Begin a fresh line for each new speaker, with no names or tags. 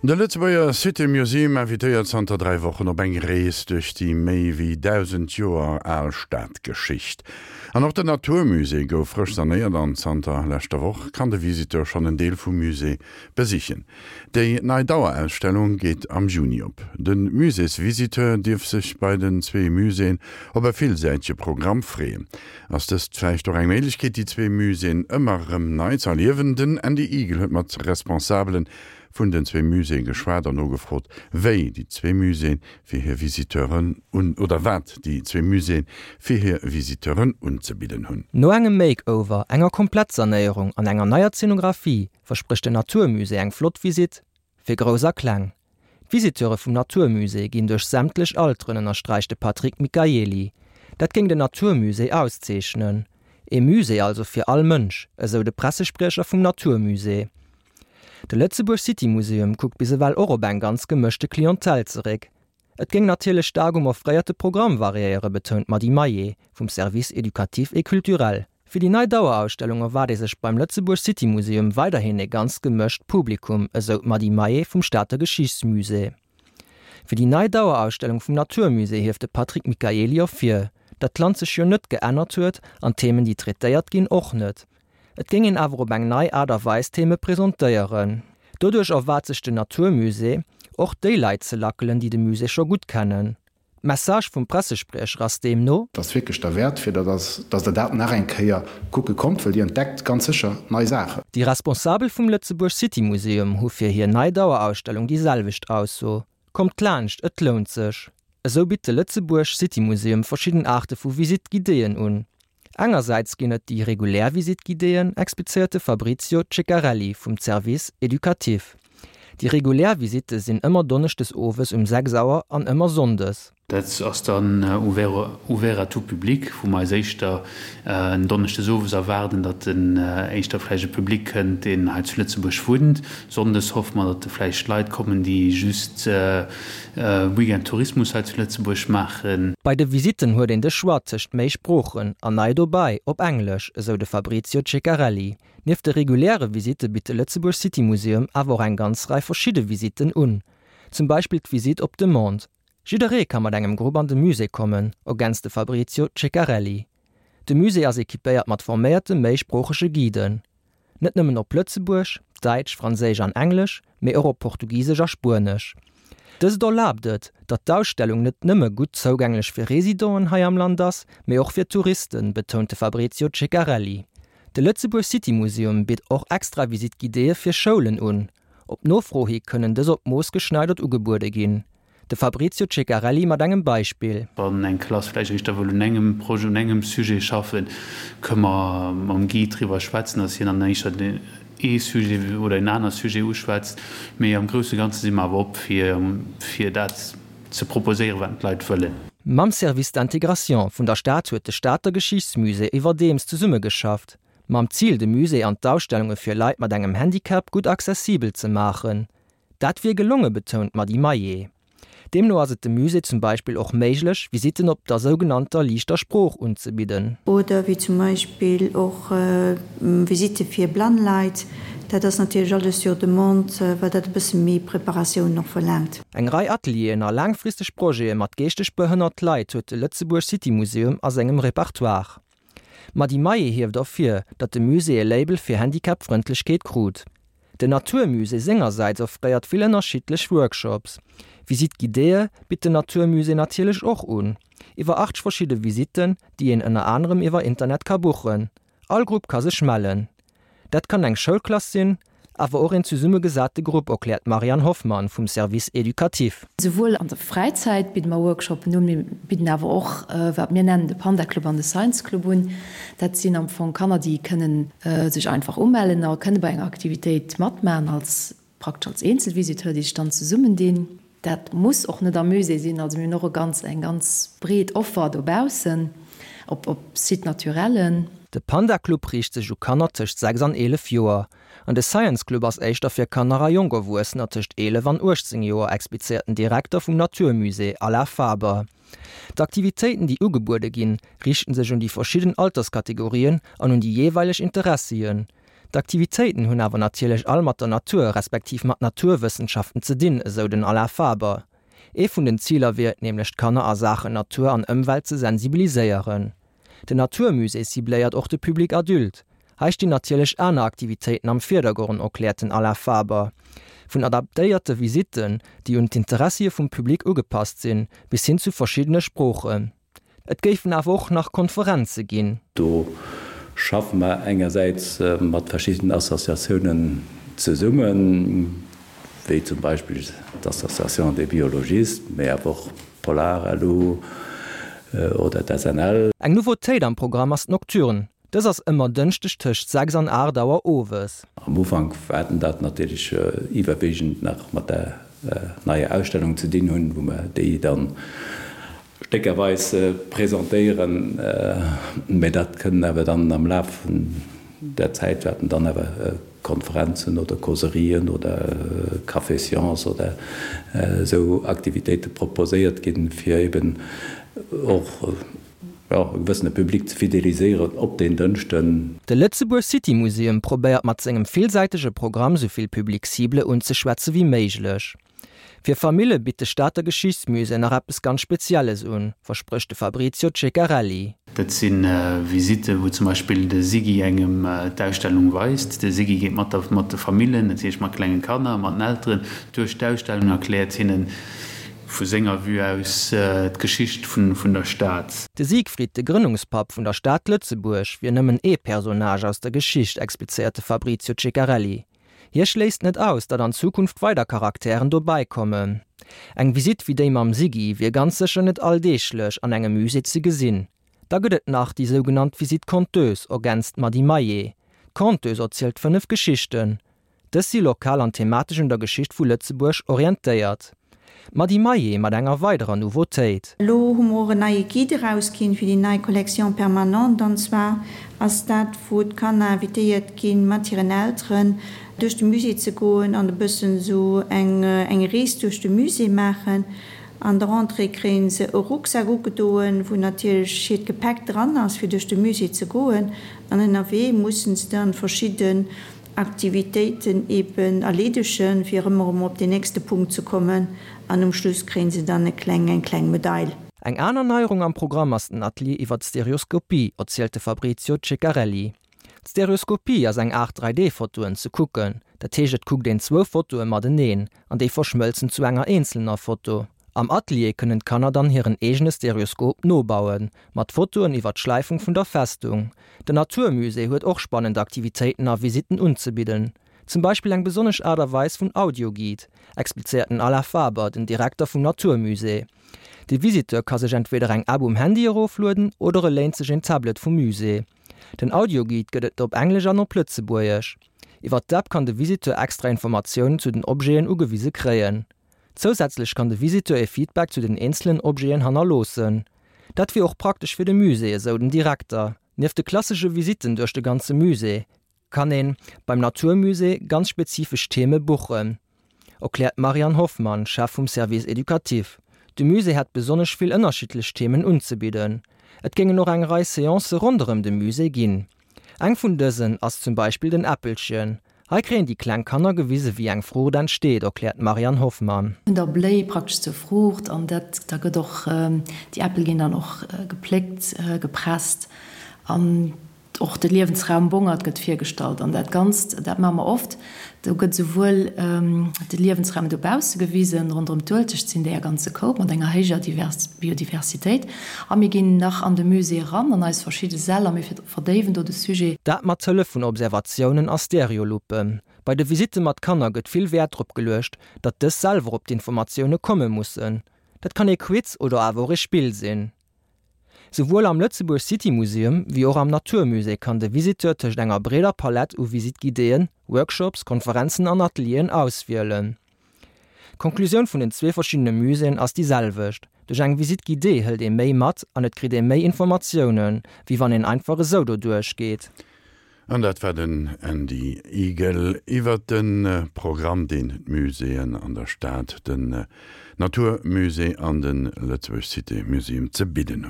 De Lëtzebuerger City Museum invitéiert zanter 3 Wochen op eng Rees duerch déi méi wéi 1.000 Joer al Stadgeschicht. An och den 'natur musée' gouf frësch sanéiert an zanter leschter Woch kann de Visiteur schonn en Deel vum Musée besichen. Déi nei Dauerausstellung geet am Juni op. De Muséesvisiteur dierf sech bei den zwee Muséeën op e villsäitege Programm freeën. Ass dëst vläicht och eng Méiglechkeet, déi zwee Muséeën ëmmer erëm nei ze erliewen? Den Andy Eagle huet mat Responsabele vun den zwee Muséeë geschwat an nogefrot, wéi déi zwee Muséeë fir hir Visiteuren un oder wat déi zwee Muséeë fir hir Visiteuren unzebidden hunn.
No engem Makeover, enger Komplettsanéierung an enger neier Zenographie versprécht den 'natur musée' eng flott Visitt fir Grouss a Kleng. D'Visiteure vum 'natur musée' ginn duerch sämtlech Alteren, ënnersträicht de Patrick Michaely. Dat géing den 'natur musée' auszeechnen. Ee Musée also fir all Mënsch, esou de Pressespriecher vum 'natur musée'. De Lëtzebuerg City Museum kuckt bis ewell och op eng ganz gemëschte Clientèle zeréck. Et géing natierlech staark um offréierte Programm variéieren, betount d'Mady Maillé vum Service éducatif et culturel. Fir déi nei Dauerausstellung erwaart ee sech beim Lëtzebuerg City Museum weiderhin ee ganz gemëscht Publikum, esou d'Mady Maillé vum Stater Geschichtsmusée. Fir déi nei Dauerausstellung vum 'natur musée' hieft de Patrick Michaely ervir, datt d'Land sech jo net geännert huet an d'Themen, déi traitéiert ginn, och net. Et géing een awer op eng nei Aart a Weis Theme presentéieren. Doduerch erwaart sech den 'natur musée' och déi Leit ze lackelen, déi de Musée scho gutt kennen. D'Message vum Pressespriecher ass deemno.
Et ass wierklech derwäert, fir datt datt Der dat nach eng Kéier kucke kommt, well Dir entdeckt ganz sécher nei Saachen.
Déi Responsabel vum Lëtzebuerg City Museum hu fir hir nei Dauerausstellung déi selwecht Ausso, Kommt laanscht, et lount sech! Esou bitt de Lëtzebuerg City Museum verschidden Aarte vu Visite guidéeën un. Engersäits ginn et déi regulär Visite guidéeën, explizéiert de Fabrizio Ceccarelli vum Service éducatif. Déi regulär Visitte sinn ëmmer donneschdes owes um 6 Auer an ëmmer sonndes.
Dat ass dann ouvert à tout public, wou mer eis éischter en Donneschdes owes erwaarden, datt en éischter vläicht e Public kënnt, deen hei zu Lëtzebuerg wunnt. Sonndes hoffe mer, datt vläicht Leit kommen, déi just Weekend Tourismus hei zu Lëtzebuerg maachen.
Bei de Visitten huet een de Choix tëscht méi Sproochen an nei dobäi op Englesch, esou de Fabrizio Ceccarelli. Nieft de reguläre Visitte bitt de Lëtzebuerg City Museum awer och eng ganz Rei verschidde Visitten un. Zum Beispill d'Visitt op Demande. Jidderee ka mat engem Grupp an de Musée kommen, ergänzt de Fabrizio Ceccarelli. De Musée ass equipéiert mat forméierte méisproochege Guiden. Net nëmmen op Lëtzebuerg, Däitsch, Franséisch an Englesch, mee och op Portugisesch a Spuenesch. Dëst erlaabt et, datt d'Ausstellung net nëmme gutt zougänglech fir Residenten hei am Land ass, mee och fir Touristen, betount de Fabrizio Ceccarelli. De Lëtzebuerg City Museum bitt och extra Visite guidéeë fir Schoulen un. Op Nofro hi kënnen dës op d'Mooss geschneidert ugebuede ginn. De Fabrizio Ceccarelli mat engem Beispill.
Wann eng Klass vläicht éischter wëll un engem Projet, un engem Sujet schaffen, kënne mer mam Guide driwwer schwätzen, dass hien dann éischter ee Sujet oder en aner Sujet uschwätzt. Mee am grousse Ganze si mer awer op, fir, fir dat ze proposéieren, wat d'Leit wëllen.
Mam Service d'intégration vun der Stad huet de Stater Geschichtsmusée iwwerdeems zesummegeschafft. Mam Zil, de Musée an d'Ausstellunge fir Leit mat engem Handicap gutt accessibel ze maachen. Dat wier gelonge betount d'Mady Maillé. Deemno ass et dem Musée zum Beispill och méiglech, Visitten op der sougenannter liichter Sprooch unzebidden.
Oder wéi zum Beispill och Visitte fir blann Leit. Dat ass natierlech alles sur demande, well dat e bësse méi Preparatioun och verlaangt.
Eng Rei Atelieren a laangfristeg Projete mat geeschteg behënnert Leit huet de Lëtzebuerg City Museum a sengem Repertoire. D'Mady Maillé hieft ervir, datt de Musée e Label fir Handicap-Frëndlechkeet krut. Den 'natur musée' sengersäits offréiert vill ënnerschiddlech Workshops. Visite guidéeë bitt den 'natur musée' natierlech och un. Iwwer 80 verschidde Visitten, déi een ënner anerem iwwer Internet ka buchen. All Grupp ka sech mellen. Dat kann eng Schoulklass sinn, awer och een zesummegesate Grupp, erkläert d'Marianne Hoffmann vum Service éducatif.
Souwuel an der Fräizäit bidde mer Workshoppen un, mir bidden awer och wat mir nennen de Panda Club an de Science Club un. Dat sinn am Fong Kanner, déi kënnen sech einfach umellen a kënne bei enger Aktivitéit matmaachen als praktesch als Eenzelvisiteur, déi sech dann zesummendinn. Dat muss och net am Musée sinn. Also mir hunn och e ganz, eng ganz breet Offer dobaussen op, op Site naturellen.
De Panda Club riicht sech u Kanner tëscht 6 an 11 Joer. An de Science Club ass éischter fir Kanner a jonk Erwuessener tëscht 11 an 18 Joer, explizéiert den Direkter vum 'natur musée' Alain Faber. D'Aktivitéiten, déi ugebuede ginn, riichten sech un déi verschidden Alterskategorien an un déi jeeweileg Interessien. D'Aktivitéiten hunn awer natierlech all mat der Natur, respektiv mat Naturwëssenschaften ze dinn, esou den Alain Faber. Ee vun den Ziler wier et nämlech d'Kanner a Saachen Natur an Ëmwelt ze sensibiliséieren. Den Naturmusée cibléiert och de Public adulte. Hei stinn natierlech aner Aktivitéiten am Virdergronn, erkläert den Alain Faber. Vun adaptéierte Visitten, déi un d'Interessie vum Public ugepasst sinn, bis hin zu verschiddene Sproochen. Et géifen awer och nach Konferenze ginn.
Do schaffe mer engersäits mat verschiddenen Associatiounen zesummen, wéi zum Beispill d'Association des biologistes, mee awer och Polar-LU oder d'SNL.
Eng Nouveautéit am Programm ass d'Nocturne. Dës ass ëmmer Dënschdeg tëscht 6 an 8 Auer owes.
Am Ufank waerten dat natierlech iwwerwegend nach mat der neier Ausstellung ze dinn hunn, wou mer déi dann stéckerweis presentéieren, mä dat kënnen awer dann am Laf vun der Zäit wäerten dann awer Konferenzen oder Causerien oder Café Science oder esou Aktivitéite proposéiert ginn, fir eben och e gewëssene Public ze fideliséieren op deen Dënschden.
De Lëtzebuerg City Museum probéiert mat sengem villsäitege Programm souvill Public Cible unzeschwätze wéi méiglech. Fir Famille bitt de Stater Geschichtsmusée nach eppes ganz Spezielles un, versprécht de Fabrizio Ceccarelli.
Dat si Visitten, wou zum Beispill de Siggy engem d'Ausstellung weist. De Siggy geet mat der mat de Famillen, dat heescht mat klenge Kanner, mat den Elteren, duerch d'Ausstellung, erkläert hinnen vu senger Vue aus d'Geschicht vun der Stad.
De Siegfried, de Grënnungspapp vun der Stad Lëtzebuerg, wier nëmmen ee Personnage aus der Geschicht, explizéiert de Fabrizio Ceccarelli. Hie schléisst net aus, datt an Zukunft weider Charakteren dobäi kommen. Eng Visitt wéi déi mam Siggy wier ganz sécher net alldeeglech an engem Musée ze gesinn. Da gëtt et nach déi sougenannt Visite conteuse, ergänzt d'Mady Maillet. D'Conteuse erzielt 5 Geschichten. Dës si lokal an thematesch un der Geschicht vu Lëtzebuerg orientéiert. D'Mady Maillet mat enger weiderer Nouveautéit.
Elo hu mer och en neie Guide erausginn fir déi nei Collection permanente. An zwar ass dat, wou d'Kanner invitéiert ginn, mat hiren Elteren duerch de Musée ze goen an e bëssen esou eng eng Rees duerch de Musée maachen. An der Rentrée kréie se e Rucksak ugedoen, wou natierlech hiert Gepäck dran ass, fir duerch de Musée ze goen. An ënnerwee mussen se dann verschidden Aktivitéiten eben erleedegen, fir erëm erëm op den nächste Punkt ze kommen an um Schluss kréien se dann e kleng eng kleng Medail.
Eng aner Neierung am Programm ass den Atelier iwwer d'Stereoskopie, erzielt de Fabrizio Ceccarelli. D'Stereoskopie ass eng Aart 3D-Fotoen ze kucken, dat heescht et kuckt een zwou Fotoe mateneen an déi verschmëlzen zu enger eenzelner Foto. Am Atelier kënnen d'Kanner dann hiren eegene Stereoskop nobauen, mat Fotoen iwwer d'Schläifung vun der Festung. Den Natur Musée huet och spannend Aktivitéiten a Visitten unzebidden. Zum Beispill eng besonnesch Aart a Weis vun Audioguide, explizéiert den Alain Faber, den Direkter vum Natur Musée. De Visiteur ka sech entweder eng App um Handy eroflueden oder e léint sech een Tablet vum Musée. Den Audioguide gëtt et op Englesch an op Lëtzebuergesch. Iwwer d'App kann de Visiteur extra Informatiounen zu den Objeten ugewise kréien. Zousätzlech kann de Visiteur e Feedback zu den eenzelen Objeten hannerloossen. Dat wier och praktesch fir de Musée, esou den Direkter. Nieft de klassesche Visitten duerch de ganze Musée, kann ee beim Naturmusée ganz spezifesch Theme buchen, erkläert d'Marianne Hoffmann, Chef vum Service éducatif. De Musée hätt besonnesch vill ënnerschiddlech Themen unzebidden. Et géingen och eng Rei Seancë ronderëm de Musée ginn. Eng vun dësen ass zum Beispill den Äppelchen. Hei kréien déi kleng Kanner gewise wéi eng Fruucht entsteet, erkläert d'Marianne Hoffmann.
Vun der Bléi praktesch zur Fruucht an dat da gëtt och, déi Äppel ginn dann och gepléckt, gepresst an och de Liewensraum Bongert gëtt virgestallt an dat Ganzt, dat maache mer oft, do gëtt esouwuel de Liewensraum dobausse gewisen, ronderëm d'Uelzecht sinn déi e ganze Koup mat enger héijer Biodiversitéit a mir ginn nach an de Musée eran an eis verschidde Säll a mir Verdéiwen do de Sujet.
Dat mat Hëllef vun Observatiounen a Stereoluppen. Bei de Visitte mat Kanner gëtt vill Wäert drop geluecht, datt dës selwer op d'Informatioune komme mussen. Dat kann ee Quiz oder awer och ee Spill sinn. Souwuel am Lëtzebuerg City Museum wéi och am Natur Musée kann de Visiteur tëscht enger breeder Palett u Visite-guidéeën, Workshops, Konferenzen an Atelieren auswielen. D'Konklusioun vun den zwee verschiddene Muséeën ass déi selwecht, Duerch eng Visite guidée hëlt ee méi mat an et kritt ee méi Informatiounen, wéi wann een einfach esou doduerch geet.
An dat war den Andy Igel iwwert de Programm, deen d'Muséeën an der Stad, den Natur Musée an de Lëtzebuerg Cité Museum ze bidden hunn.